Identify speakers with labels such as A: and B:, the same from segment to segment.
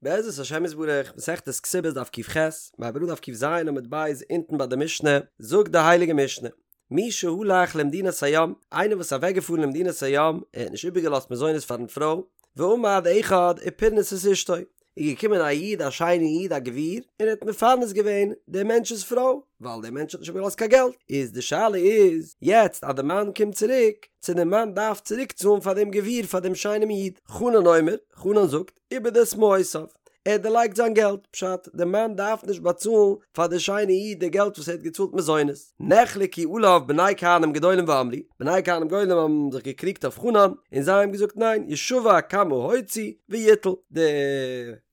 A: בעזרת השם יתברך, מסכת כתובות דף ק"ח, מ'הייבט אן דף ק"ז עמוד ב' אונטן ביי די משנה, זאגט די הייליגע משנה, מי שהלך למדינת הים, איינער וואס איז אוועקגעפארן למדינת הים, ער האט נישט איבערגעלאזט מזונות פארן פרוי, ועמד אחד ופרנס את אשתו, איז געקומען א איד א שיינע איד א גביר, און ער האט מפרנס געווען דעם מענטש'ס פרוי, ווייל דער מענטש האט נישט איבערגעלאזט קיין געלט, איז די שאלה איז, יעצט אז די מאן קומט צוריק, צו די מאן דארף צוריק צאלן פאר דעם גביר פאר דעם שיינעם איד, חנן אומר, חנן זאגט, איבד את מעותיו, ער האט דערלייגט זיין געלט, פשט, די מאן דארף נישט באצאלן פאר די שיינע איד די געלט וואס ער האט געצאלט מזונות. נחלקו עליו בני כהנים גדולים ואמרו, בני כהנים גדולים האבן זיך געקריגט אויף חנן, און זיי האבן געזאגט ניין, ישבע כמה הוציא ויטול, די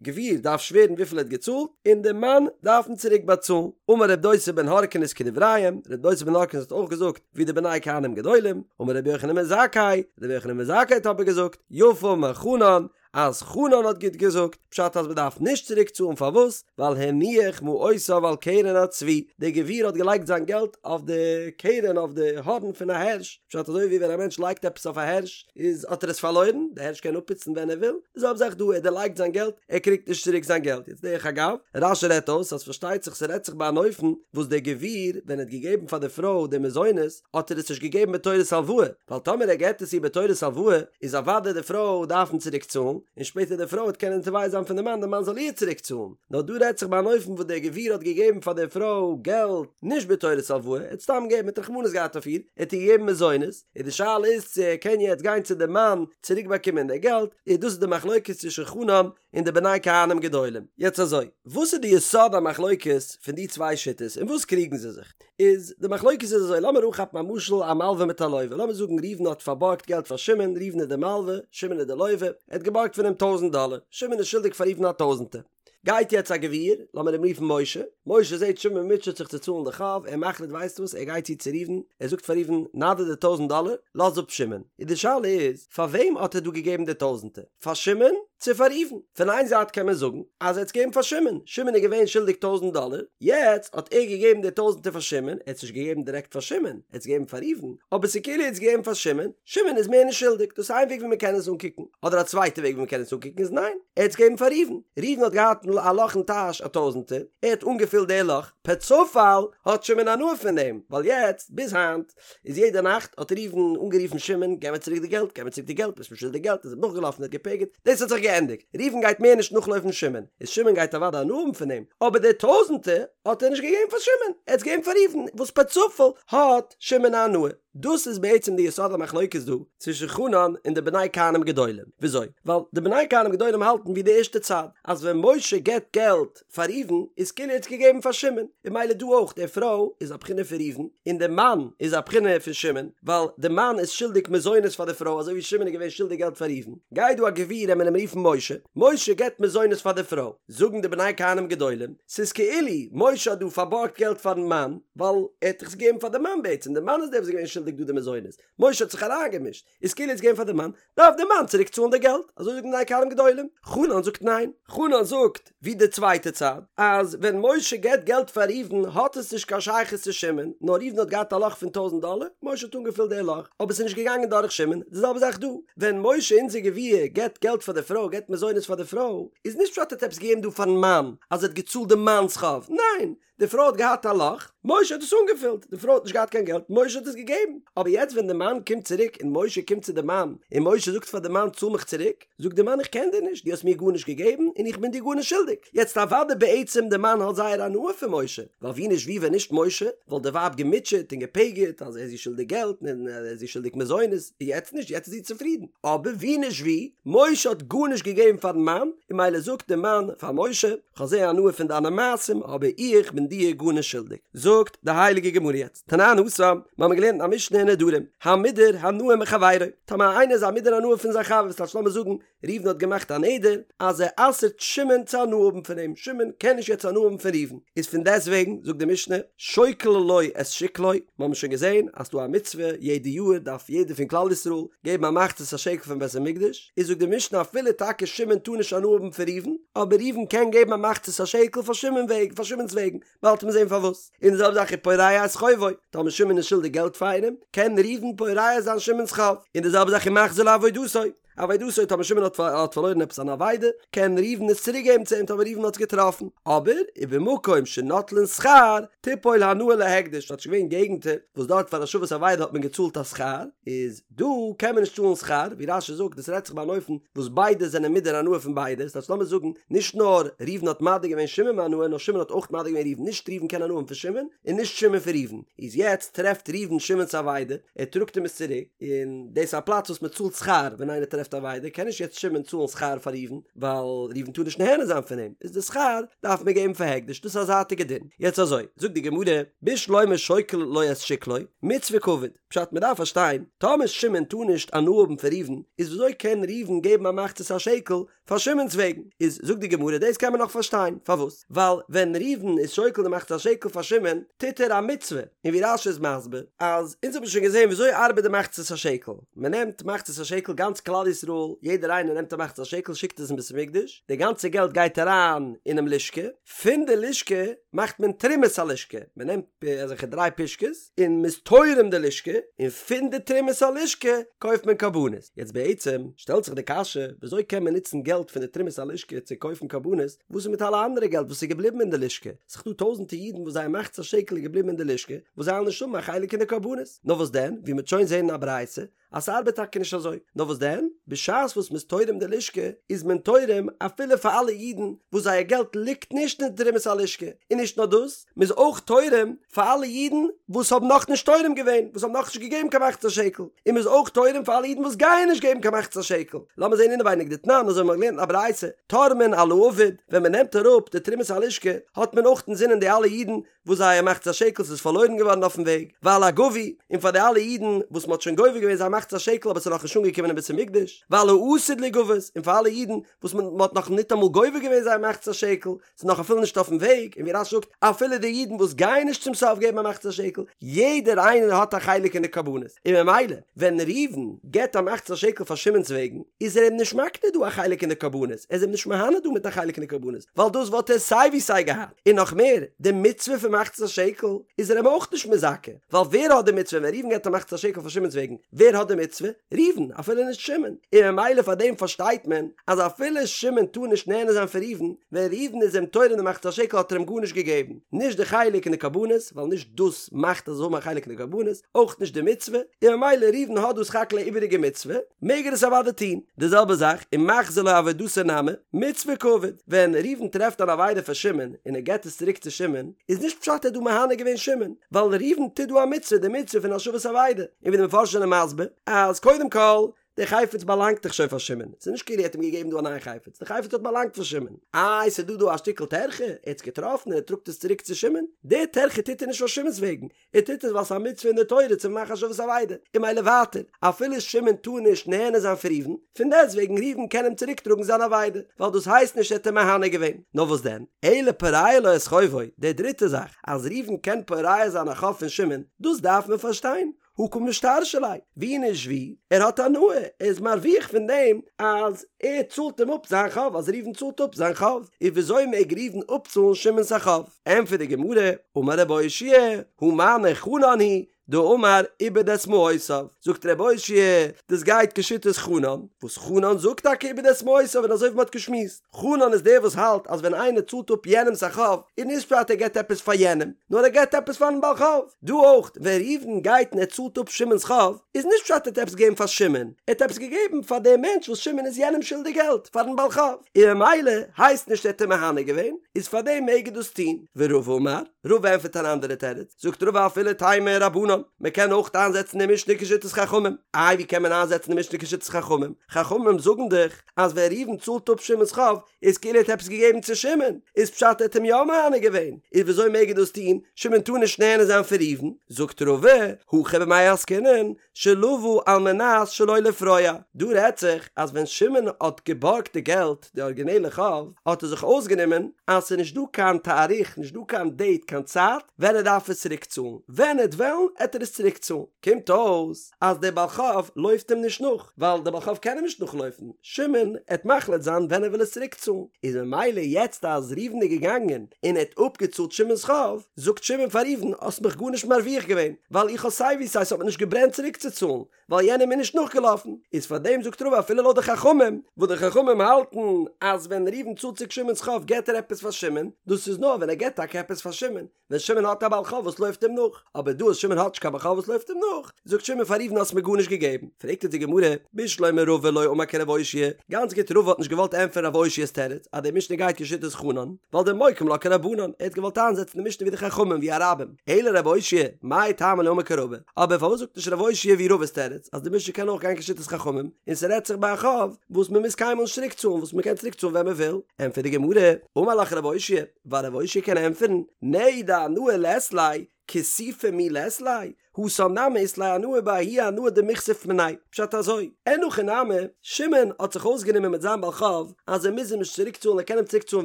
A: גביר דארף שווערן וויפיל ער האט געצאלט, און די מאן דארף אים צוריק באצאלן. אמר רב דוסא בן הרכינס כדבריהם, רב דוסא בן הרכינס האט אויך געזאגט ווי די בני כהנים גדולים, אמר רבי יוחנן בן זכאי, רבי יוחנן בן זכאי האט אבער געזאגט, יפה אמר חנן, אז חנן האט גוט געזאגט, פשט אז מ'דארף נישט צוריק צאלן פארוואס? ווייל הניח מעותיו על קרן הצבי, דער גביר האט געלייגט זיין געלט אויף די קרן אויף די הארן פון א הערש, פשט אזוי ווי ווען א מענטש לייגט עפעס אויף א הערש איז האט ער עס פארלוירן, די הערש קען אפפוצן ווען ער וויל, די זעלבע זאך דא ער האט דערלייגט זיין געלט, ער קריגט נישט צוריק זיין געלט, יעצט דרך אגב, רש"י רעדט אויס אז פארשטייט זיך ס'רעדט זיך ביי אן אופן וואס דער גביר ווען ער האט געגעבן פאר די פרוי די מזונות האט ער עס נישט געגעבן בתורת הלוואה, ווייל טאמער ער געט עס איר בתורת הלוואה, איז אוודאי די פרוי דארף אים צוריק צאלן, און שפעטער די פרוי וועט קענען תובע זיין פון די מאן די מאן זאל איר צוריק צאלן, נאר דא רעדט זיך ביי אן אופן וואס דער גביר האט געגעבן פאר די פרוי געלט נישט בתורת הלוואה, ער האט סתם געגעבן, ער האט רחמנות געהאט אויף איר, ער האט איר געגעבן מזונות, און די שאלה איז צו ער קען יעצט גיין צו די מאן צוריק באקומען די געלט, איז דאס איז די מחלוקת צווישן חנן און די בני כהנים גדולים. יעצט אזוי, וואס איז די יסוד המחלוקת פון די צוויי שיטות, אין וואס קריגן זיי זיך? איז די מחלוקת איז אזוי, לאמיר אנכאפן א משל א מלווה מיט א לווה, לאמיר זאגן ראובן האט פארבארגט געלט פאר שמעון, ראובן איז די מלווה, שמעון איז די לווה, ער האט געבארגט פון אים טויזנט דאלער, שמעון איז שולדיג פאר ראובן א טויזנטער. גייט יעצט א גביר, לאמיר אים רופן משה, משה זעט שמעון מוטשעט זיך צו צאלן די חוב, ער מחליט ווייסט וואס, ער גייט צו צו ראובן, ער זאגט פאר ראובן, נא דיר די טויזנט דאלער, לאז אפ שמעון. איז די שאלה איז, פאר וועם האט ער דא געגעבן די טויזנטער? פאר שמעון צו פאר ראובן? פון איין זייט קען מען זאגן אז ער האט עס געגעבן פאר שמעון, שמעון איז געווען שולדיג טויזנט דאלער, יעצט האט ער געגעבן די טויזנטער פאר שמעון, ער האט עס נישט געגעבן דירעקט פאר שמעון, ער האט עס געגעבן פאר ראובן, אבער ס'איז כאילו ער האט עס געגעבן פאר שמעון, שמעון איז מער נישט שולדיג, דאס איז איין וועג ווי מען קען עס אנקוקן, אדער א צווייטע וועג ווי מען קען עס אנקוקן איז ניין, ער האט עס געגעבן פאר ראובן, ראובן האט געהאט א לאך אין טאש א טויזנטער, ער האט אנגעפילט די לאך, פער צופאל האט שמעון הנאה פון דעם, ווייל יעצט, ביז היינט, איז יעדע נאכט האט ראובן אנגערופן שמעון, געב מיר צוריק די געלט, געב מיר צוריק די געלט, ביסט מיר שולדיג געלט, איז אים נאכגעלאפן און האט געפגר'ט, דאס האט זיך געענדיגט, ראובן גייט מער נישט נאכלויפן שמעון, איז שמעון גייט אוודאי הנאה האבן פון דעם, אבער די טויזענטער האט ער נישט געגעבן פאר שמעון, ער האט עס געגעבן פאר ראובן, וואס פער צופאל האט שמעון א הנאה. דאס איז בעצם די יסוד המחלוקת דא צווישן חנן און די בני כהנים גדולים, וויאזוי? ווייל די בני כהנים גדולים האלטן ווי די ערשטע צד, אז ווען משה געבט געלט פאר ראובן איז כאילו ער האט עס געגעבן פאר שמעון, און ממילא דא אויך, די פרוי איז א בחינה פון ראובן, און די מאן איז א בחינה פון שמעון, ווייל די מאן איז שולדיג מזונות פאר די פרוי אזוי ווי שמעון איז געווען שולדיג געלט פאר ראובן, גייט דא א גביר עמיר אים רופן משה, משה געבט מזונות פאר די פרוי, זאגן די בני כהנים גדולים, ס'איזכאילו משה האט דא פארבארגט געלט פארן מאן, ווייל ער האט דאך עס געגעבן פאר די מאן בעצם, די מאן איז דער וואס איז געווען שולדיג דא די מזונות, משה האט זיך אריינגעמישט, איז כאילו ער האט עס געגעבן פאר די מאן, דארף די מאן צוריק צאלן די געלט, אזוי זאגן בני כהנים גדולים. חנן זאגט ניין, חנן זאגט ווי די צווייטע צד, אז ווען משה געבט געלט פאר ראובן האט עס נישט קיין שייכות צו שמעון, נאר ראובן האט געהאט א לאך פון טויזנט דאלער, משה האט אנגעפילט די לאך, אבער עס איז נישט געגאנגען דורך שמעון, די זעלבע זאך דא, ווען משה אונזער גביר געבט געלט פאר די פרוי, געבט מזונות פאר די פרוי, איז נישט פשט ער האט עפעס געגעבן דא פארן מאן, אז ער האט געצאלט די מאנ'ס חוב, ניין, די פרוי האט געהאט א לאך, משה האט עס אנגעפילט, די פרוי האט נישט געהאט קיין געלט, משה האט עס געגעבן, אבער יעצט ווען די מאן קומט צוריק און משה קומט צו די מאן און משה זאגט פאר די מאן צאל מיך צוריק, זאגט די מאן איך קען דיר נישט, דו האסט מיר גארנישט געגעבן און איך בין דיר גארנישט שולדיג, יעצט אוודאי בעצם די מאן האט זייער הנאה פון משה, ווייל ווי נישט ווי ווען נישט משה וואלט די ווייב געמוטשעט און געפגר'ט אז ער איז איר שולדיג געלט און ער איז איר שולדיג מזונות, יעצט נישט יעצט איז זי צופרידן, אבער ווי נישט ווי, משה האט גארנישט געגעבן פארן מאן, און ממילא זאגט די מאן פאר משה, כ'האב זייער הנאה פון דיינע מעשים, אבער איך בין דיר גארנישט שולדיג. זאגט די הייליגע גמרא יעצט, תנן התם, מיר האבן געלערנט א משנה אין נדרים, המודר הנאה מחבירו, טאמער איינער איז א מודר הנאה פון זיין חבר, ס'טייטש לאמיר זאגן, ראובן האט געמאכט א נדר אז ער אסר'ט שמעון צו הנאה האבן פון אים, שמעון קען נישט יעצט הנאה האבן פון ראובן, איז פון דעסטוועגן, זאגט די משנה, שוקל לו את שקלו, מיר האבן שוין געזען אז ס'דא א מצוה, יעדע יאר דארף יעדער פון כלל ישראל געבן א מחצית השקל פארן בית המקדש, איז זאגט די משנה אפילו טאקע שמעון טאר נישט הנאה האבן פון ראובן, אבער ראובן קען געבן א מחצית השקל פאר שמעון וועגן, פאר שמעון'ס וועגן, באלד וועט מען זען פארוואס. און די זעלבע זאך ופורע את חובו, טאמער שמעון איז שולדיג געלט פאר איינעם, קען ראובן פורע זיין שמעון'ס חוב, און די זעלבע זאך ומחזיר לו אבידתו. אבידתו טאמער שמעון האט האט פארלוירן עפעס אן אבידה, קען ראובן עס צוריק געבן צו אים טאמער ראובן האט עס געטראפן. אבער, ובמקום שנוטלין שכר, תיפול הנאה להקדש, ס'האט שוין געווען געגנטער וואס דארט פאר השבת אבידה האט מען געצאלט א שכר, איז דא קען מען נישט צאלן שכר, ווי רש"י זאגט דאס רעדט זיך ביי אן אופן וואס ביידע זענען מודר הנאה פון ביידע, ס'הייסט לאמיר זאגן נישט נאר ראובן האט מדיר געווען שמעון מהנאה נאר שמעון האט אויך מדיר געווען ראובן, נישט ראובן קען הנאה האבן פון שמעון און נישט שמעון פון ראובן, איז יעצט טרעפט ראובן שמעון'ס אבידה, ער טראגט אים עס צוריק, און דאס איז א פלאץ וואס מען צאלט שכר ווען איינער טרעפט אבידה, קען נישט יעצט שמעון צאלן שכר פאר ראובן, ווייל ראובן טאר נישט נהנה זיין פון אים, איז די שכר דארף מען געבן פאר הקדש, דאס איז א זייטיגע דין. יעצט אזוי, זאגט די גמרא, בשלמא שוקל לו את שקלו, מצוה קעביד, פשט מען דארף פארשטיין, טאמער שמעון טאר נישט הנאה האבן פון ראובן, איז וויאזוי קען ראובן געבן א מחצית השקל פאר שמעון'ס וועגן? איז זאגט די גמרא דאס קען מען נאך פארשטיין, פארוואס? ווייל ווען ראובן איז שוקל די מחצית השקל פאר שמעון, טוט ער א מצוה, און ווי רש"י איז מסביר, אז אונז האבן שוין געזען וויאזוי ארבעט די מחצית השקל, מען נעמט מחצית השקל גאנץ כלל ישראל, יעדער איינער נעמט א מחצית השקל שיקט עס אין בית המקדש, די גאנצע געלט גייט אריין אינעם לשכה, פון די לשכה מאכט מען תרומת הלשכה, מען נעמט אזעלכע דריי פושקעס און מען איז תורם די לשכה, און פון די תרומת הלשכה קויפט מען קרבנות. יעצט בעצם שטעלט זיך די קשיא, ווי אזוי קען מען נוצן געלט פון די תרומת הלשכה צו קויפן קרבנות, וואס איז מיט אלע אנדערע געלט וואס איז געבליבן אין די לשכה? ס'איז דא טויזענטער אידן וואס זייער מחצית השקל איז געבליבן אין די לשכה, וואס זיי וועלן נישט האבן א חלק אין די קרבנות. נאר וואס דען, ווי מ'וועט שוין זען אין א ברייתא, אז ס'ארבעט טאקע נישט אזוי. נאר וואס דען? בשעת וואס מ'איז תורם די לשכה, איז מען תורם אפילו פאר אלע אידן וואס זייער געלט ליגט נישט אין תרומת הלשכה. און נישט נאר דאס, מ'איז אויך תורם פאר אלע אידן וואס האבן נאכנישט תורם געווען, וואס האבן נאכנישט געגעבן קיין מחצית השקל. און מ'איז אויך תורם פאר אלע אידן וואס גייען נישט געבן קיין מחצית השקל. לאמיר זען אינעווייניג דתנן, אזוי האבן מיר געלערנט אין א ברייתא, תורמין על האבוד, ווען מ'נעמט אראפ די תרומת הלשכה, האט מען אויך אינזינען די אלע אידן וואס זייער מחצית השקל איז פארלוירן געווארן אויפן וועג, ועל הגבוי, און פאר די אלע אידן וואס מ'האט שוין גובה געווען זייער מחצית השקל אבער ס'איז נאכנישט אנגעקומען אין בית המקדש, ועל העתיד ליגבות, און פאר אלע אידן וואס מ'האט נאך ניטאמאל גובה געווען זייער מחצית השקל, ס'איז נאך אפילו נישט אויפן וועג, און ווי רש"י זאגט, אפילו די אידן וואס גייען נישט צום סוף געבן א מחצית השקל, יעדער איינער האט א חלק אין די קרבנות, און ממילא ווען ראובן געבט א מחצית השקל פאר שמעון'ס וועגן, איז ער אים נישט מקנה דא א חלק אין די קרבנות, ער איז אים נישט מהנה דא מיט א חלק אין די קרבנות, ווייל דאס וואלט ער סיי ווי סיי געהאט. און נאך מער, די מצוה פון מחצית השקל איז ער אים אויך נישט מזכה, ווייל ווער האט די מצוה ווען ראובן געבט א מחצית השקל פאר שמעון'ס וועגן, ווער האט די מצוה? ראובן, אפילו נישט שמעון, און ממילא פאר דעם פארשטייט מען אז אפילו שמעון טאר נישט נהנה זיין פון ראובן, ווען ראובן איז אים תורם די מחצית השקל האט ער אים גארנישט געגעבן, נישט די חלק אין די קרבנות, ווייל נישט דאס מאכט אז ער זאל האבן א חלק אין די קרבנות, אויך נישט די מצוה, און ממילא ראובן האט דא סך הכל א איבעריגע מצוה, מעג ער עס אוודאי טון. די זעלבע זאך, ומחזיר לו אבידתו נמי, מצוה קעביד, ווען ראובן טרעפט אן אבידה פאר שמעון און ער געבט עס צוריק צו שמעון, איז נישט פשט ער האט דא מהנה געווען שמעון, ווייל ראובן טוט דא א מצוה, די מצוה פון השבת אבידה, און ווי די מפרשים זענען מסביר, אז קודם כל, די חפץ באלאנגט דאך שוין פאר שמעון, ס'איז נישט כאילו ער האט אים געגעבן דא א נייע חפץ, די חפץ האט באלאנגט פאר שמעון, איי ס'איז דא דא א שטיקל טרחה, ער האט עס געטראפן און ער טראגט עס צוריק צו שמעון, די טרחה טוט ער נישט פאר שמעון'ס וועגן, ער טוט עס ווייל ס'איז א מצוה אין די תורה צו מאכן השבת אבידה, און ממילא ווייטער, אפילו שמעון טאר נישט נהנה זיין פון ראובן, פון דעסטוועגן ראובן קען אים צוריק טראגן זיין אבידה, ווייל דאס הייסט נישט ער האט אים מהנה געווען. נאר וואס דען, אלא פורע לו את חובו, די דריטע זאך, אז ראובן קען פורע זיין א חוב פון שמעון, דאס דארף מען פארשטיין, הא קא משתרשי ליה, ווי נישט ווי, ער האט הנאה, ער איז מרוויח פון דעם אז ער צאלט אים אפ זיין חוב, אז ראובן צאלט אפ זיין חוב, איז וויאזוי מעג ראובן אפצאלן שמעון'ס א חוב? ענטפערט די גמרא, אמר רב אושעיא, הא מני חנן היא, דאמר איבד את מעותיו, זאגט רב אושעיא, דאס גייט כשיטת חנן, וואס חנן זאגט טאקע איבד את מעותיו און אזוי ווי מ'האט געשמועסט, חנן איז דער וואס האלט אז ווען איינער צאלט אפ יענעמ'ס א חוב, איז נישט פשט ער געבט עפעס פאר יענעם, נאר ער געבט עפעס פאר'ן בעל חוב. דא אויך, ווען ראובן גייט און ער צאלט אפ שמעון'ס חוב, איז נישט פשט ער האט עפעס געגעבן פאר שמעון, ער האט עפעס געגעבן פאר דעם מענטש וואס שמעון איז יענעם שולדיג געלט, פאר'ן בעל חוב, און ממילא הייסט נישט ער האט אים מהנה געווען, איז פאר דעם מעג ער דאס טון. ורבא אמר, רבא ענטפערט אן אנדערע תירוץ, זאגט רבא אפילו תימא רבנן, מען קען אויך איינזעצן די משנה כשיטת חכמים, איי ווי קען מען איינזעצן די משנה כשיטת חכמים, חכמים זאגן דאך אז ווען ראובן צאלט אפ שמעון'ס חוב, איז כאילו ער האט עפעס געגעבן צו שמעון, איז פשט ער האט אים יא מהנה געווען, איז וויאזוי מעג ער דאס טון, שמעון טאר נישט נהנה זיין פון ראובן, זאגט רבא, הכא במאי עסקינן, שלוה על מנת שלא לפרוע, דא רעדט זיך אז ווען שמעון האט געבארגט די געלט, די ארגינעלע חוב, האט ער זיך אויסגענומען אז ס'איז נישט דא קיין תאריך, נישט דא קיין דעיט, קיין צייט, ווען ער דארף עס צוריק צאלן, ווען ער וועט וועלן. עט ער עס צוריק צאלן. קומט אויס אז דער בעל חוב לויפט אים נישט נאך, ווייל דער בעל חוב קען אים נישט נאכלויפן, שמעון עט מחליט זיין ווען ער וויל עס צוריק צאלן, איז ממילא יעצט אז ראובן איז געגאנגען און ער האט אפגעצאלט שמעון'ס חוב, זאגט שמעון פאר ראובן האסט מיך גארנישט מרוויח געווען, ווייל איך האב סיי ווי סיי ס'האט מיר נישט געברענט צוריק צו צאלן, ווייל יענער איז מיר נישט נאכגעלאפן, איז פאר דעם זאגט רבא אפילו לויט די חכמים, וואס די חכמים האלטן אז ווען ראובן צאלט צוריק שמעון'ס חוב געט ער עפעס פאר שמעון, דאס איז נאר ווען ער געט טאקע עפעס פאר שמעון, ווען שמעון האט א בעל חוב וואס לויפט אים נאך, אבער דא אז שמעון האט נישט קיין בעל חוב וואס לויפט אים נאך, זאגט שמעון פאר ראובן האסט מיר גארנישט געגעבן, פרעגט אונז די גמרא, בשלמא רבא לא אמר כרב אושעיא, גאנץ גוט רבא האט נישט געוואלט ענטפערן רב אושעיא'ס תירוץ אז די משנה גייט כשיטת חנן, ווייל דמוקים לה כרבנן, ער האט געוואלט איינזעצן די משנה ווי די חכמים ווי א רבים, אלא רב אושעיא, מאי טעמא לא אמר כרבא, אבער פארוואס זאגט נישט רב אושעיא ווי רבא'ס תירוץ אז די משנה קען אויך גיין כשיטת חכמים, און ס'רעדט זיך ביי א חוב וואס מ'מוז קיינמאל נישט צוריק צאלן וואס מ'קען צוריק צאלן ווען מ'וויל, ענטפערט די גמרא, אמר לך רב אושעיא, ווייל רב אושעיא קען ענטפערן, נהי דהנאה לית ליה, כיסופא מי לית ליה, התם נמי אית ליה הנאה בההיא הנאה דמיכסיף מיניה, פשט אזוי, אין הכי נמי, שמעון האט זיך אויסגענומען מיט זיין בעל חוב אז ער מוז אים נישט צוריק צאלן ער קען אים צוריק צאלן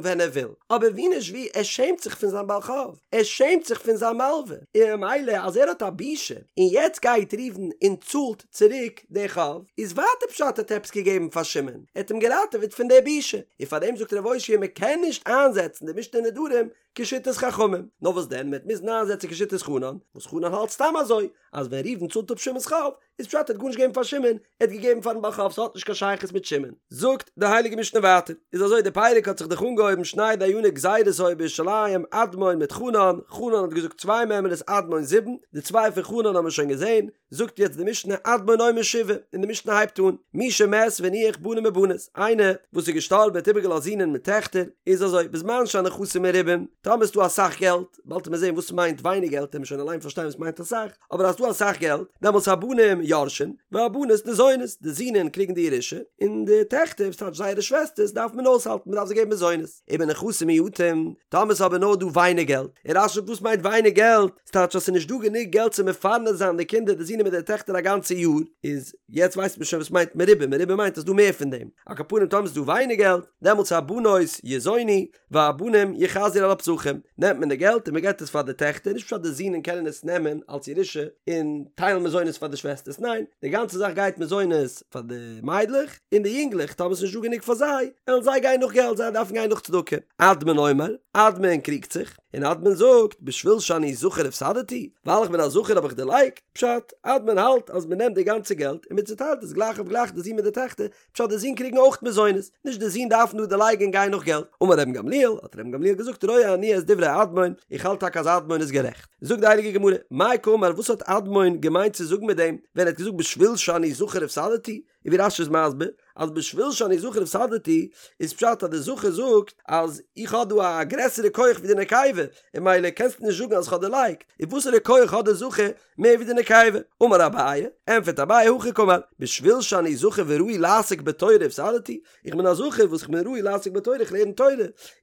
A: ווען ער וויל, אבער ווי נישט ווי ער שעמט זיך פון זיין בעל חוב, ער שעמט זיך פון זיין מלווה, און ממילא אז ער האט א בושה און יעצט גייט ראובן און צאלט צוריק די חוב, איז ווייטער פשט ער האט עפעס געגעבן פאר שמעון, ער האט אים געראטעוועט פון די בושה, און פארדעם זאגט רב אושעיא מען קען נישט איינזעצן די משנה נדרים כשיטת חכמים, נאר וואס דען מען וועט מוזן איינזעצן כשיטת חנן, וואס חנן האלט סתם אזוי, אז ווען ראובן צאלט אפ שמעון'ס חוב, איז פשט ער האט גארנישט געגעבן פאר שמעון, ער האט געגעבן פארן בעל חוב, ס'האט נישט קיין שייכות מיט שמעון. זאגט די הייליגע משנה ווייטער, איז אזוי די פרק האט זיך דאך אנגעהויבן שני דייני גזירות היו בירושלים, אדמון מיט חנן, חנן האט געזאגט צוויי מימרות אדמון זיבן, די צוויי פון חנן האבן מיר שוין געזען, זאגט יעצט די משנה אדמון אומר שבעה, און די משנה הייבט אן, מי שמת והניח בנים ובנות, איינער וואס איז געשטארבן האט איבערגעלאזט זינען מיט טעכטער, איז אזוי, בזמן שהנכסים מרובים, טאמער איז דא אסאך געלט, באלד וועט מען זען וואס מיינט ווייניג געלט, וועט מען שוין אליין פארשטיין וואס מיינט אסאך, אבער אז ס'דא אסאך געלט, דעמאלטס הבנים יורשין, והבנות ניזונות, די זינען קריגן די ירושה, און די טעכטער, וואס טייטש זייערע שוועסטערס, דארף מען אויסהאלטן, מען דארף זיי געבן מזונות. ובנכסים מועטים, טאמער ס'איז אבער נאר דא ווייניג געלט, און רש"י זאגט וואס מיינט ווייניג געלט? ס'טייטש אז ס'איז נישט דא גענוג געלט צו מפרנס זיין די קינדער די זינען מיט די טעכטער א גאנצע יאר, איז יעצט ווייסט מען שוין וואס מיינט מרובים, מרובים מיינט אז ס'דא מער פון דעם, על כל פנים טאמער ס'איז דא ווייניג געלט, דעמאלטס הבנות יזונו, והבנים יחזרו על הפסחים, נעמט מען די געלט און מ'געט עס פאר די טעכטער, נישט פשט די זינען קענען עס נעמען אלס ירושה און טיילן מזונות פאר די שוועסטערס, ניין, די גאנצע זאך גייט מזונות פאר די מיידלעך, און די יונגלעך טאמער ס'איז נישט דא גענוג פאר זיי, וועלן זיי גיין נאך געלט, זיי דארפן גיין נאך צדקה. אדמון אומר, אדמון קריגט זיך, און אדמון זאגט, בשביל שאני זכר הפסדתי, ווייל איך בין א זכר האב איך דערלייגט, פשט, אדמון האלט אז מ'נעמט די גאנצע געלט און מ'צוטיילט עס גלייך אויף גלייך די זין מיט די טעכטער, פשט די זין קריגן אויך מזונות, נישט די זין דארפן דא דערלייגן און גיין נאך געלט. אמר רבן גמליאל, האט רבן גמליאל געזאגט רואה אני את דברי אדמון, איך האלט טאקע אז אדמון איז גערעכט. זאגט די הייליגע גמרא, מאי קאמר וואס האט אדמון געמיינט צו זאגן מיט דעם ווען ער האט געזאגט בשביל שאני זכר הפסדתי, און ווי רש"י איז מסביר אז בשביל שאני זכר הפסדתי איז פשט אז די זכר זאגט אז איך האב דא א גרעסערע כח ווי די נקבה און ממילא קענסטו נישט זאגן אז איך האב דערלייגט, און וואסערע כח האט די זכר מער ווי די נקבה? אמר אביי, ענטפערט אביי הכי קאמר, בשביל שאני זכר וראוי לעסוק בתורה הפסדתי, איך בין א זכר וואס איך בין ראוי לעסוק בתורה איך לערן תורה,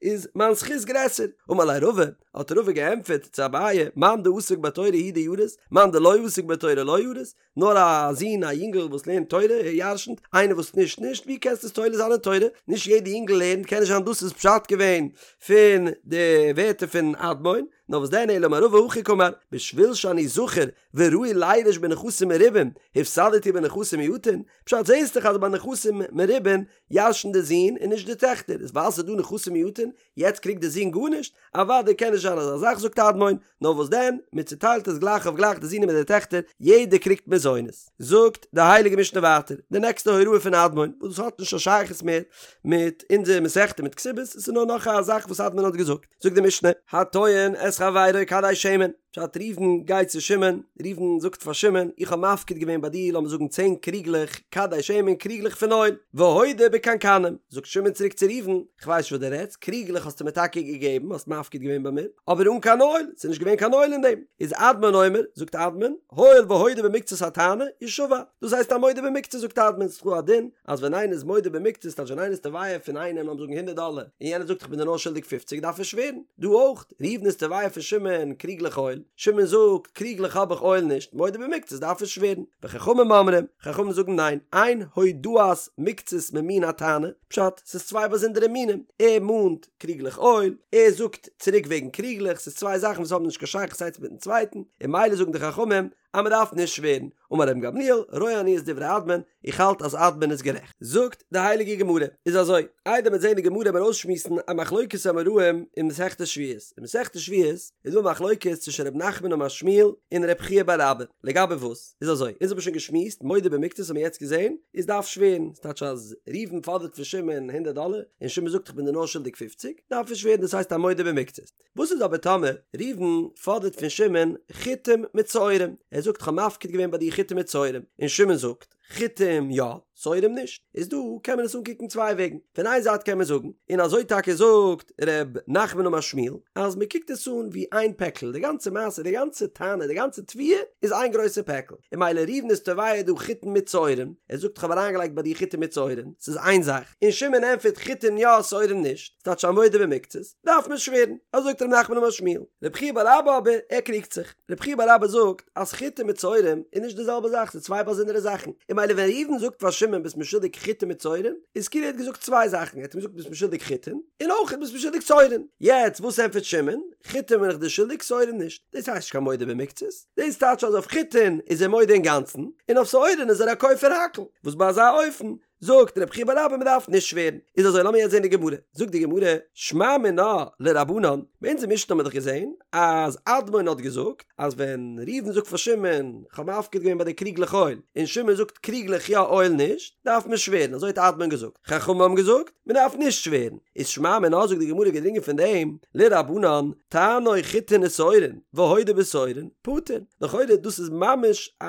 A: איז מיין זכות גרעסער. אמר ליה רבא, האט רבא געענטפערט צו אביי, מאן דעסיק בתורה הוא דירית, מאן דלא עסיק בתורה לא ירית, נאר א זון א יונגל וואס לערנט תורה ער ירשנט, איינער וואס נישט נישט, ווי קענסטו עס תולה זיין אין תורה? נישט יעדע יונגל לערנט, קען נישט זיין דאס איז פשט געווען פון די ווערטער פון אדמון, נאר וואס דען אלא אמר רבא הכי קאמר, בשביל שאני זכר וראוי לירש בנכסים מרובים, הפסדתי בנכסים מועטין, פשט זעסט דאך אז ביי נכסים מרובים ירשנט די זון און נישט די טעכטער, איז ווייל ס'איז דא נכסים מועטין, יעצט קריגט די זון גארנישט? אוודאי קען נישט זיין אזא זאך זאגט אדמון, נאר וואס דען, מען צוטיילט עס גלייך אויף גלייך די זין מיט די טעכטער, יעדער קריגט מזונות. זאגט די הייליגע משנה ווייטער, די נעקסטע הוראה פון אדמון, וואס דאס האט נישט קיין שייכות מער מיט אונזער מסכתא מיט כתובות, עס איז נאר נאך א זאך וואס אדמון האט געזאגט, זאגט די משנה, הטוען את חברו כדי שמן, פשט ראובן גייט צו שמעון, ראובן זאגט פאר שמעון, איך האב מפקיד געווען ביי דיר לאמיר זאגן צען קריגלעך כדי שמן, קריגלעך פון אויל, והודה בקנקנים, זאגט שמעון צוריק צו ראובן, כ'ווייס נישט וואס דו רעדסט, קריגלעך האסטו מיר טאקע געגעבן, האסט מפקיד געווען ביי מיר, אבער אן קיין אויל, ס'איז נישט געווען קיין אויל אין דעם. איז אדמון אומר, זאגט אדמון, הואיל והודה במקצת הטענה, ישבע. דאס הייסט א מודה במקצת זאגט אדמון, ס'איז דא א דין, אז ווען איינער איז מודה במקצת, טייטש ווען איינער איז תובע פון איינעם לאמיר זאגן הונדערט דאלער, און יענער זאגט איך בין דיר נאר שולדיג פופציג דארף ער שווערן. דא אויך, ראובן איז תובע פון שמעון קריגלעך אויל, שמעון זאגט, קריגלעך האב איך אויל נישט, מודה במקצת דארף ער שווערן. וחכמים אומרים, חכמים זאגן ניין, אין הודאת מקצת ממין הטענה, פשט, ס'איז צוויי באזונדערע מינים, ער מאנט קריגלעך אויל, ער זאגט צוריק וועגן קריגלעך, ס'איז צוויי זאכן וואס האבן נישט קיין שייכות איינס מיטן צווייטן, און ממילא זאגן די חכמים אז מען דארף נישט שווערן, אמר רבן גמליאל, רואה אני את דברי אדמון, איך האלט אז אדמון איז גערעכט. זאגט די הייליגע גמרא, איז אזוי, איידער מיר זעהן די גמרא מיר אויסשמועסן א מחלוקת אמוראים אין מסכת שבועות, אין מסכת שבועות איז דא א מחלוקת צווישן ר' נחמן אמר שמואל און ר' חייא בר אבא, לגבי וואס? איז אזוי, אונז האבן שוין געשמועסט, מודה במקצת האבן מיר יעצט געזעהן, איז דארף שווערן, ס'טייטש אז ראובן פאדערט פון שמעון הונדערט דאלער, און שמעון זאגט איך בין דיר נאר שולדיג פופציג, דארף ער שווערן דאס הייסט א מודה במקצת. וואס איז אבער טאמער ראובן פאדערט פון שמעון חיטים מיט שעורים, ער זאגט כ'האב מפקיד געווען ביי דיר חיטים מיט שעורים, און שמעון זאגט, חיטים יא, שעורים נישט, איז דא קען מען עס אנקוקן צוויי וועגן, פון איין זייט קען מען זאגן, און אזוי טאקע זאגט ר' נחמן אמר שמואל, אז מען קוקט עס אן ווי איין פעקל, די גאנצע מעשה, די גאנצע טענה, די גאנצע תביעה איז איין גרויסע פעקל, און ממילא ראובן איז תובע דא חיטים מיט שעורים, ער זאגט כ'האב אריינגעלייגט ביי דיר חיטים מיט שעורים, ס'איז איין זאך, און שמעון ענטפערט חיטים יא שעורים נישט, ס'טייטש א מודה במקצת, דארף מען שווערן, אזוי זאגט ר' נחמן אמר שמואל. רב חייא בר אבא אבער, ער קריגט זיך. רב חייא בר אבא זאגט אז חיטים מיט שעורים איז נישט די זעלבע זאך, ס'איז צוויי באזונדערע זאכן. און ממילא ווען ראובן זאגט פאר שמעון ביסט מיר שולדיג חיטים מיט שעורים, איז כאילו ער האט געזאגט צוויי זאכן, ער האט אים געזאגט ביסט מיר שולדיג חיטים, און אויך ביסט מיר שולדיג שעורים. יעצט וואס ענטפערט שמעון? חיטים בין איך דיר שולדיג, שעורים נישט. דאס הייסט נישט קיין מודה במקצת. דאס טייטש אז אויף חיטין איז ער מודה אינגאנצן, און אויף שעורים איז ער א כופר הכל. וואס ביי אזא אופן זאגט רב חייא בר אבא מען דארף נישט שווערן, איז אזוי לאמיר יעצט זען די גמרא, זאגט די גמרא, שמע מינה לרבנן, ביי אונזער משנה האט מען דאך געזען אז אדמון האט געזאגט אז ווען ראובן זאגט פאר שמעון כ'האב מפקיד געווען ביי דיר קריגלעך אויל, און שמעון זאגט קריגלעך יא אויל נישט, דארף מען שווערן, אזוי האט אדמון געזאגט, חכמים האבן געזאגט מען דארף נישט שווערן, איז שמע מינה זאגט די גמרא געדרינגען פון דעם, לרבנן, טענו חיטין ושעורין, והודה בשעורין, פטור, לכאורה דאס איז ממש א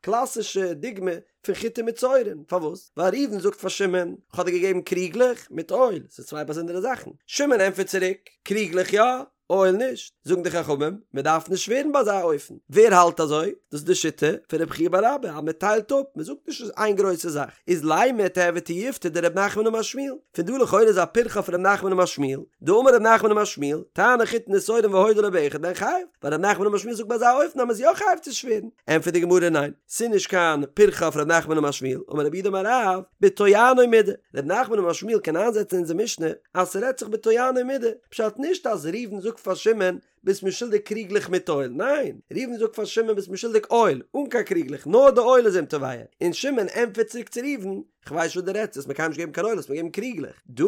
A: קלאסישע דוגמא פון חיטים מיט שעורים, פארוואס? ווייל ראובן זאגט פאר שמעון, כ'האב דיר געגעבן קריגלעך מיט אויל, ס'איז צוויי באזונדערע זאכן. שמעון ענטפערט צוריק, קריגלעך יא, אויל נישט. זאגן די חכמים, מען דארף נישט שווערן ביי אזא אופן. ווער האלט אזוי? דאס איז די שיטה פון רבי חייא בר אבא, אז מען טיילט אפ, מען זאגט נישט ס'איז איין גרויסע זאך. איז לימא תיהוי תיובתא דרב נחמן אמר שמואל. פון דא לכאורה איז א פירכא אויף רב נחמן אמר שמואל, דאמר רב נחמן אמר שמואל, טענו חיטין ושעורין והודה לו באחד מהן חייב, ווייל רב נחמן אמר שמואל זאגט ביי אזא אופן אז מען איז יא חייב צו שווערן. ענטפערט די גמרא ניין. ס'איז נישט קיין פירכא אויף ר' נחמן אמר שמואל, אמר רב יהודה אמר רב, בטוענו מידי, ר' נחמן אמר שמואל קען איינזעצן אונזער משנה אז ס'רעדט זיך בטוענו מידי, פשט נישט אז ראובן זאגט פאר שמעון ביסט מיר שולדיג קריגלעך מיט אויל, ניין, ראובן זאגט פאר שמעון ביסט מיר שולדיג אויל, אן קיין קריגלעך, נאר די אויל איז אים תובע, און שמעון ענטפערט צוריק צו ראובן, כ'ווייס נישט וואס דו רעדסט, האסט מיר קיינמאל נישט געגעבן קיין אויל, האסט מיר געגעבן קריגלעך. דא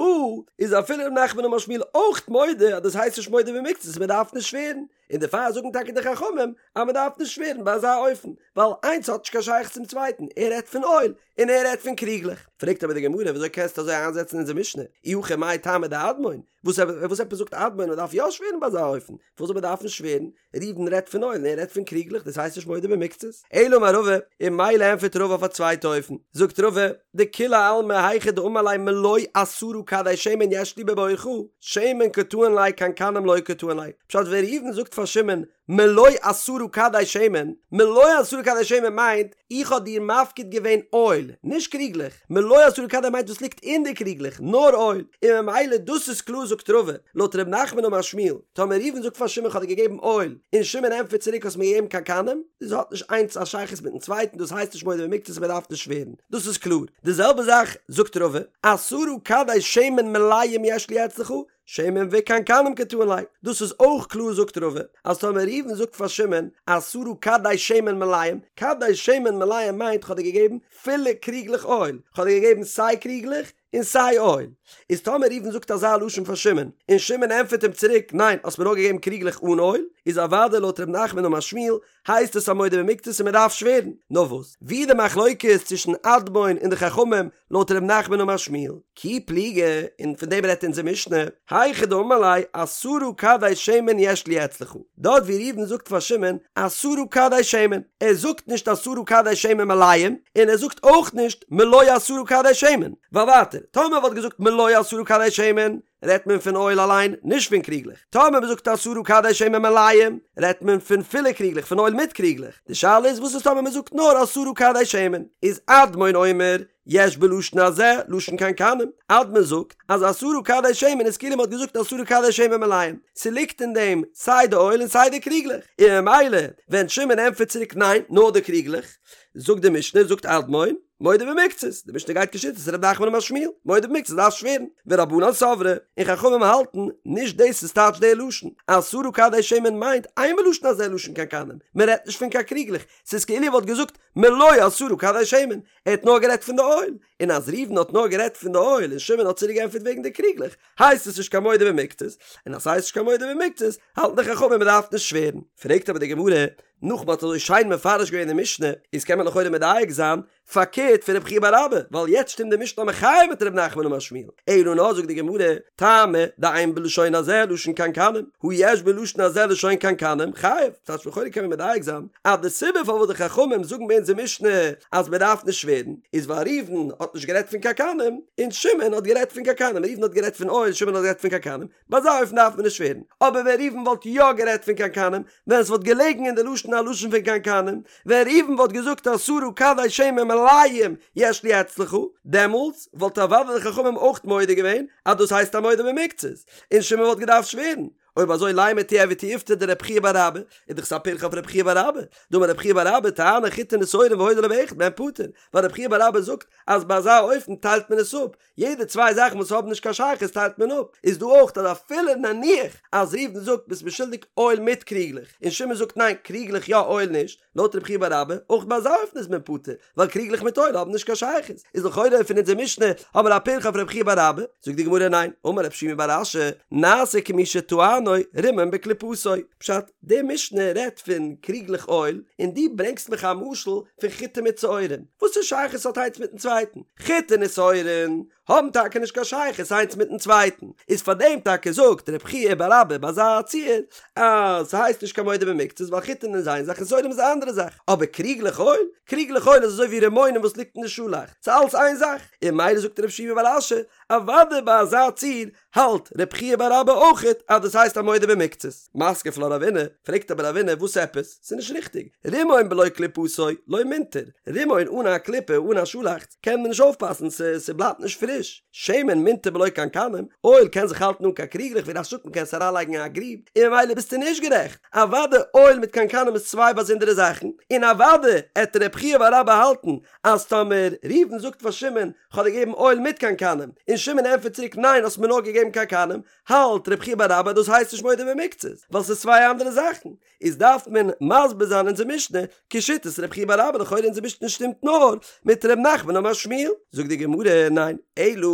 A: איז אפילו ר' נחמן אמר שמואל אויך מודה אז דאס הייסט נישט מודה במקצת, מ'דארף נישט שווערן. און דערפאר זאגן טאקע די חכמים אז מען דארף נישט שווערן ביי אזא אופן, ווייל איינס האט נישט קיין שייכות צום צווייטן, ער רעדט פון אויל און ער רעדט פון קריגלעך. פרעגט אבער די גמרא וויאזוי קענסטו אזוי איינזעצן אונזער משנה, אי הכי מאי טעמא דאדמון, וואס וואס עפעס זאגט אדמון מען דארף יא שווערן ביי אזא אופן, פארוואס זאל מען דארפן שווערן, ראובן רעדט פון אויל און ער רעדט פון קריגלעך דאס הייסט נישט מודה במקצת, אלא אמר רבא, און ממילא ענטפערט רבא אויף א צווייטע אופן, זאגט רבא, דכולי עלמא היכא דאמר ליה מלא עשרה כדי שמן יש לי בבורך, שמן קא טעין ליה קנקנים לא קא טעין ליה, פשט ווען ראובן זאגט פאר שמעון מלא עשרה כדי שמן, מלא עשרה כדי שמן מיינט איך האב דיר מפקיד געווען אויל, נישט קריגלעך, מלא עשרה כדי מיינט וואס ליגט אין די קריגלעך, נאר אויל, און ממילא דאס איז קלאר זאגט רבא, לויט ר' נחמן אמר שמואל, טאמער ראובן זאגט פאר שמעון כ'האב דיר געגעבן אויל, און שמעון ענטפערט צוריק האסט מיר געגעבן קנקנים, דאס האט נישט איינס א שייכות מיטן צווייטן דאס הייסט נישט מודה במקצת מען דארף נישט שווערן, דאס איז קלאר, די זעלבע זאך זאגט רבא, עשרה כדי שמן מלאים יש לי אצלך, שמן וקנקנים קא טעין ליה, דאס איז אויך קלאר זאגט רבא, אז טאמער ראובן זאגט פאר שמעון עשרה כדי שמן מלאים, כדי שמן מלאים מיינט כ'האב דיר געגעבן פילע קריגלעך אויל, כ'האב דיר געגעבן סיי קריגלעך און סיי אויל, איז טאמער ראובן זאגט אזא לשון פאר שמעון, און שמעון ענטפערט אים צוריק ניין האסט מיר נאר געגעבן קריגלעך אן אויל, איז אוודאי לויט ר' נחמן אמר שמואל הייסט עס א מודה במקצת און מען דארף שווערן. נאר וואס? ווי די מחלוקת צווישן אדמון און די חכמים לויט ר' נחמן אמר שמואל, כי פליגי, און פון דעם רעדט אונזער משנה, היכא דאמר ליה עשרה כדי שמן יש לי אצלך, דארט ווי ראובן זאגט פאר שמעון עשרה כדי שמן, ער זאגט נישט עשרה כדי שמן מלאים, און ער זאגט אויך נישט מלא עשרה כדי שמן, ווייל ווייטער, טאמער מען וואלט געזאגט מלא עשרה כדי שמן, רעדט מען פון אויל אליין, נישט פון קריגלעך. טאמער מען זאגט עשרה כדי שמן מלאים, רעדט מען פון פילע קריגלעך, פון אויל מיט קריגלעך. די שאלה איז וואס איז טאמער מען זאגט נאר עשרה כדי שמן? איז אדמון אומר, יש בלשון הזה, לשון קנקנים. אדמון זאגט אז עשרה כדי שמן איז כאילו מען האט געזאגט עשרה כדי שמן מלאים. ס'ליגט אין דעם סיי די אויל און סיי די קריגלעך. און ממילא ווען שמעון ענטפערט צוריק ניין, נאר די קריגלעך, זאגט די משנה, זאגט אדמון. מודה במקצת, די משנה גייט כשיטת ר' נחמן אמר שמואל, מודה במקצת דארף שווערן, ורבנן סברי, און חכמים האלטן, נישט דאס איז טייטש די לשון, עשרה כדי שמן מיינט אין בלשון הזה לשון קנקנים, מען רעדט נישט פון קיין קריגלעך, ס'איז כאילו ער וואלט געזאגט מלא עשרה כדי שמן, ער האט נאר גערעדט פון די אויל, און אז ראובן האט נאר גערעדט פון די אויל און שמעון האט צוריק געענטפערט וועגן די קריגלעך, הייסט עס נישט קיין מודה במקצת, און אז ס'הייסט נישט קיין מודה במקצת, האלטן די חכמים מען דארף נישט שווערן. פרעגט אבער די גמרא, נאך מ'האט אזוי שיין מפרש געווען די משנה, איז קען מען לכאורה מדייק זיין, פארקערט פון רב חייא בר אבא, ווייל יעצט שטימט די משנה א מחיה מיט ר' נחמן אמר שמואל, אלא נאר זאגט די גמרא, טעמא דאין בלשון הזה לשון קנקנים, הא יש בלשון הזה לשון קנקנים, חייב, ס'טייטש לכאורה קען מען מדייק זיין, אז די סיבה פארוואס די חכמים זאגן ביי אונזער משנה אז מען דארף נישט שווערן, איז ווייל ראובן האט נישט גערעדט פון קנקנים, און שמעון האט גערעדט פון קנקנים, ראובן האט גערעדט פון אויל, שמעון האט גערעדט פון קנקנים, ביי אזא אופן דארף מען נישט שווערן, אבער ווען ראובן וואלט יא גערעדט פון קנקנים, ווען עס וואלט געלעגן אין די לשון א לשון פון קנקנים, ווען ראובן וואלט געזאגט עשרה כדי שמן מלאים יש לי אצלך, דעמאלטס וואלט אוודאי די חכמים אויך מודה געווען אז דאס הייסט א מודה במקצת, און שמעון וואלט געדארפט שווערן. אויב אזוי לימא תיהוי תיובתא דרב חייא בר אבא, איז דאך עס א פירכא אויף רב חייא בר אבא, דאמר רב חייא בר אבא תעני חיטין ושעורין והודה לו באחד מהן פטור, ווייל רב חייא בר אבא זאגט אז ביי אזא אופן טיילט מען עס אפ, יעדע צוויי זאכן וואס האבן נישט קיין שייכות טיילט מען אפ, איז דא אויך אז אפילו נניח אז ראובן זאגט ביסט מיר שולדיג אויל מיט קריגלעך, און שמעון זאגט ניין קריגלעך יא אויל נישט, לויט רב חייא בר אבא, אויך ביי אזא אופן איז מען פטור, ווייל קריגלעך מיט אויל האבן נישט קיין שייכות, איז לכאורה פון אונזער משנה האבן מיר א פירכא אויף רב חייא בר אבא, זאגט די גמרא ניין, אמר רב שימי בר אשי, נעשה כמי שטענו רימון בקליפתו, פשט, די משנה רעדט פון קריגלעך אויל, און דו ברענגסט מיך א משל פון חיטה מיט שעורים, וואס א שייכות האט איינס מיטן צווייטן? חיטה און שעורים האבן טאקע נישט קיין שייכות איינס מיטן צווייטן, איז פאר דעם טאקע זאגט רב חייא בר אבא ביי אזא ציור אז ס'הייסט נישט קיין מודה במקצת ווייל חיטין איז איין זאך און שעורים איז א אנדערע זאך, אבער קריגלעך אויל? קריגלעך אויל איז אזוי ווי רימונים וואס ליגט אין די שאלאכץ, ס'איז אלץ איין זאך, און ממילא זאגט רב שימי בר אשי, אוודאי ביי אזא ציור האלט רב חייא בר אבא אויכעט אז דאס הייסט א מודה במקצת. מתקיף לה רבינא, פרעגט אבער רבינא וואס עפעס? ס'איז נישט ריכטיג, רימון בלא קליפתו לא מינטר, רימון אן א קליפה אן א שאלאכץ קען מען נישט אויפפאסן ס'בלייבט נישט פריש, שמן מינטר בלא קנקנים, אויל קען זיך האלטן אן קיין קריגלעך ווי רש"י זאגט מ'קען עס אריינלייגן אין א גריב, און ממילא ביסטו נישט גערעכט, אוודאי אויל מיט קנקנים איז צוויי באזונדערע זאכן, און אוודאי עט רב חייא בר אבא האלטן אז טאמער ראובן זאגט פאר שמעון כ'האב דיר געגעבן אויל מיט קנקנים, און שמעון ענטפערט צוריק ניין האסט מיר נאר געגעבן קנקנים, האלט רב חייא בר אבא דאס הייסט נישט מודה במקצת, ווייל ס'איז צוויי אנדערע זאכן, איז דארף מען מסביר זיין אונזער משנה כשיטת רב חייא בר אבא לכאורה אונזער משנה שטימט נאר מיט ר' נחמן אמר שמואל, זאגט די גמרא ניין, אלא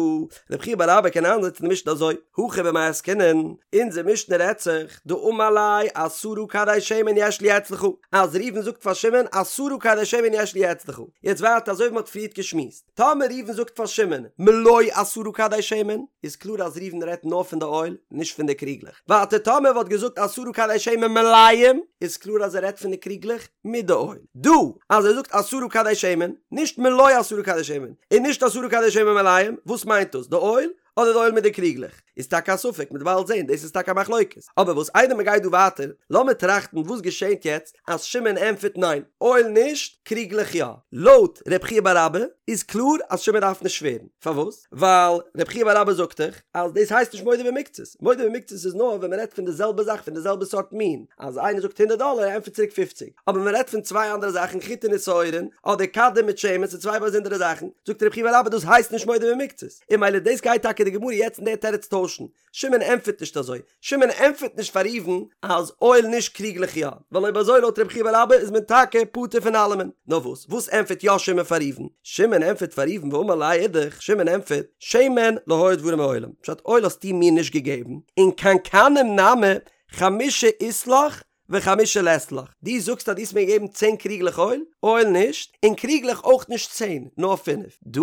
A: רב חייא בר אבא קען איינזעצן די משנה אזוי, הכא במאי עסקינן, אונזער משנה רעדט זיך דאמר ליה עשרה כדי שמן יש לי אצלך, אז ראובן זאגט פאר שמעון עשרה כדי שמן יש לי אצלך, יעצט ווייטער אזוי ווי מ'האט פריערט געשמועסט, טאמער ראובן זאגט פאר שמעון מלא עשרה כדי שמן, איז קלאר אז ראובן רעדט נאר פון די אויל, נישט פון די קריגלעך. ווייטער טאמער ער וואלט געזאגט עשרה כדי שמן מלאים, איז קלאר אז ער רעדט פון די קריגלעך מיט די אויל. דא אז ער זאגט עשרה כדי שמן, נישט מלא עשרה כדי שמן, און נישט עשרה כדי שמן מלאים, וואס מיינט דאס? די אויל? אדער די אויל מיט די קריגלעך? איז טאקע א ספק, מ'וועט באלד זען, דאס איז טאקע א מחלוקת. אבער וואס איידער מ'גייט דא ווייטער, לאמיר טראכטן וואס געשענט יעצט אז שמעון ענטפערט ניין, אויל נישט, קריגלעך יא. לויט ר' חייא בר אבא איז קלאר אז שמעון דארף נישט שווערן. פארוואס? ווייל ר' חייא בר אבא זאגט דאך אז דאס הייסט נישט מודה במקצת. מודה במקצת איז נאר ווען מ'רעדט פון די זעלבע זאך, פון די זעלבע סארט מין. אז איינער זאגט הונדערט דאלער, ער ענטפערט צוריק פופציג. אבער מען רעדט פון צוויי אנדערע זאכן חיטין און שעורין, אדער כדים מיט שמן, ס'איז צוויי באזונדערע זאכן. זאגט ר' חייא בר אבא דאס הייסט נישט מודה במקצת. און ממילא דאס גייט טאקע די גמרא יעצט אין די תירוץ טוישן. שמעון ענטפערט נישט אזוי. שמעון ענטפערט נישט פאר ראובן אז אויל נישט קריגלעך יא. ווייל אויב אזוי לויט רבי חייא בר אבא איז מען טאקע פטור פון אלעמען. נאר וואס? וואס ענטפערט יא שמעון פאר ראובן? שמעון ענטפערט פאר ראובן ואמר ליה אידך, שמעון ענטפערט, שמן לא היו דברים מעולם, פשט אויל האסטו מיר נישט געגעבן, און קנקנים נמי חמשה אית לך וחמשה לית לך, דו זאגסט אז דו האסט מיר געגעבן צען קריגלעך אויל, אויל נישט, און קריגלעך אויך נישט צען, נאר פינף. דא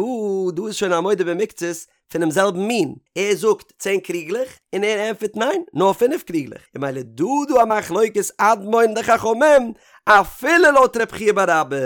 A: דא איז שוין א מודה במקצת פונעם זעלבן מין, ער זאגט צען קריגלעך, און ער ענטפערט ניין, נאר פינף קריגלעך, און ממילא דא דא א מחלוקת אדמון די חכמים, אפילו לויט רב חייא בר אבא,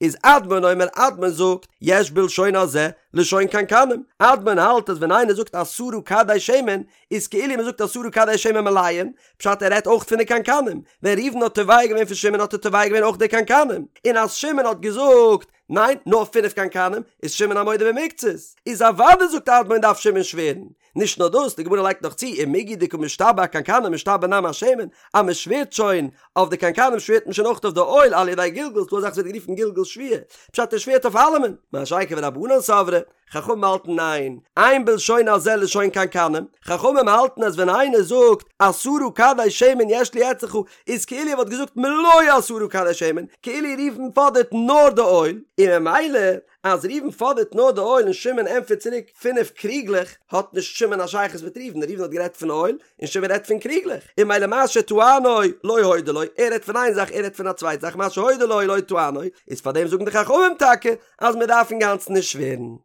A: איז אדמון אומר אדמון זאגט, יש בלשון הזה לשון קנקנים, אדמון האלט אז ווען איינער זאגט עשרה כדי שמן, איז כאילו מען זאגט עשרה כדי שמן מלאים, פשט ער רעדט אויך פון די קנקנים, ווען ראובן האט תובע געווען פון שמעון האט ער תובע געווען אויך די קנקנים, און אז שמעון האט געזאגט ניין נאר פינף קנקנים, איז שמעון א מודה במקצת, איז אוודאי זאגט אדמון דארף שמעון שווערן. נישט נאר דאס, די גמרא לייגט נאך צו, ומיגו דקא משתבע אקנקנים משתבע נמי אשמן, אז מען שווערט שוין אויף די קנקנים שווערט מען שוין אויך אויף די אויל על ידי גלגול, ס'דא אזאך וואס ווערט גערופן גלגול שבועה, פשט ער שווערט אויף אלעמען, מה שאין כן ורבנן סברי, חכמים האלטן ניין, אין בלשון הזה לשון קנקנים, חכמים האלטן אז ווען איינער זאגט עשרה כדי שמן יש לי אצלך איז כאילו ער וואלט געזאגט מלא עשרה כדי שמן, כאילו ראובן פאדערט נאר די אויל, און ממילא אז ראובן פאדערט נאר די אויל און שמעון ענטפערט צוריק פינף קריגלעך, האט נישט שמעון א שייכות מיט ראובן, ראובן האט גערעדט פון אויל, און שמעון רעדט פון קריגלעך, און ממילא מה שטענו לא הודה לו, ער רעדט פון איין זאך ער רעדט פון א צווייטע זאך מה שהודה לו לא טענו, איז פארדעם זאגן די חכמים טאקע אז מען דארף אינגאנצן נישט שווערן.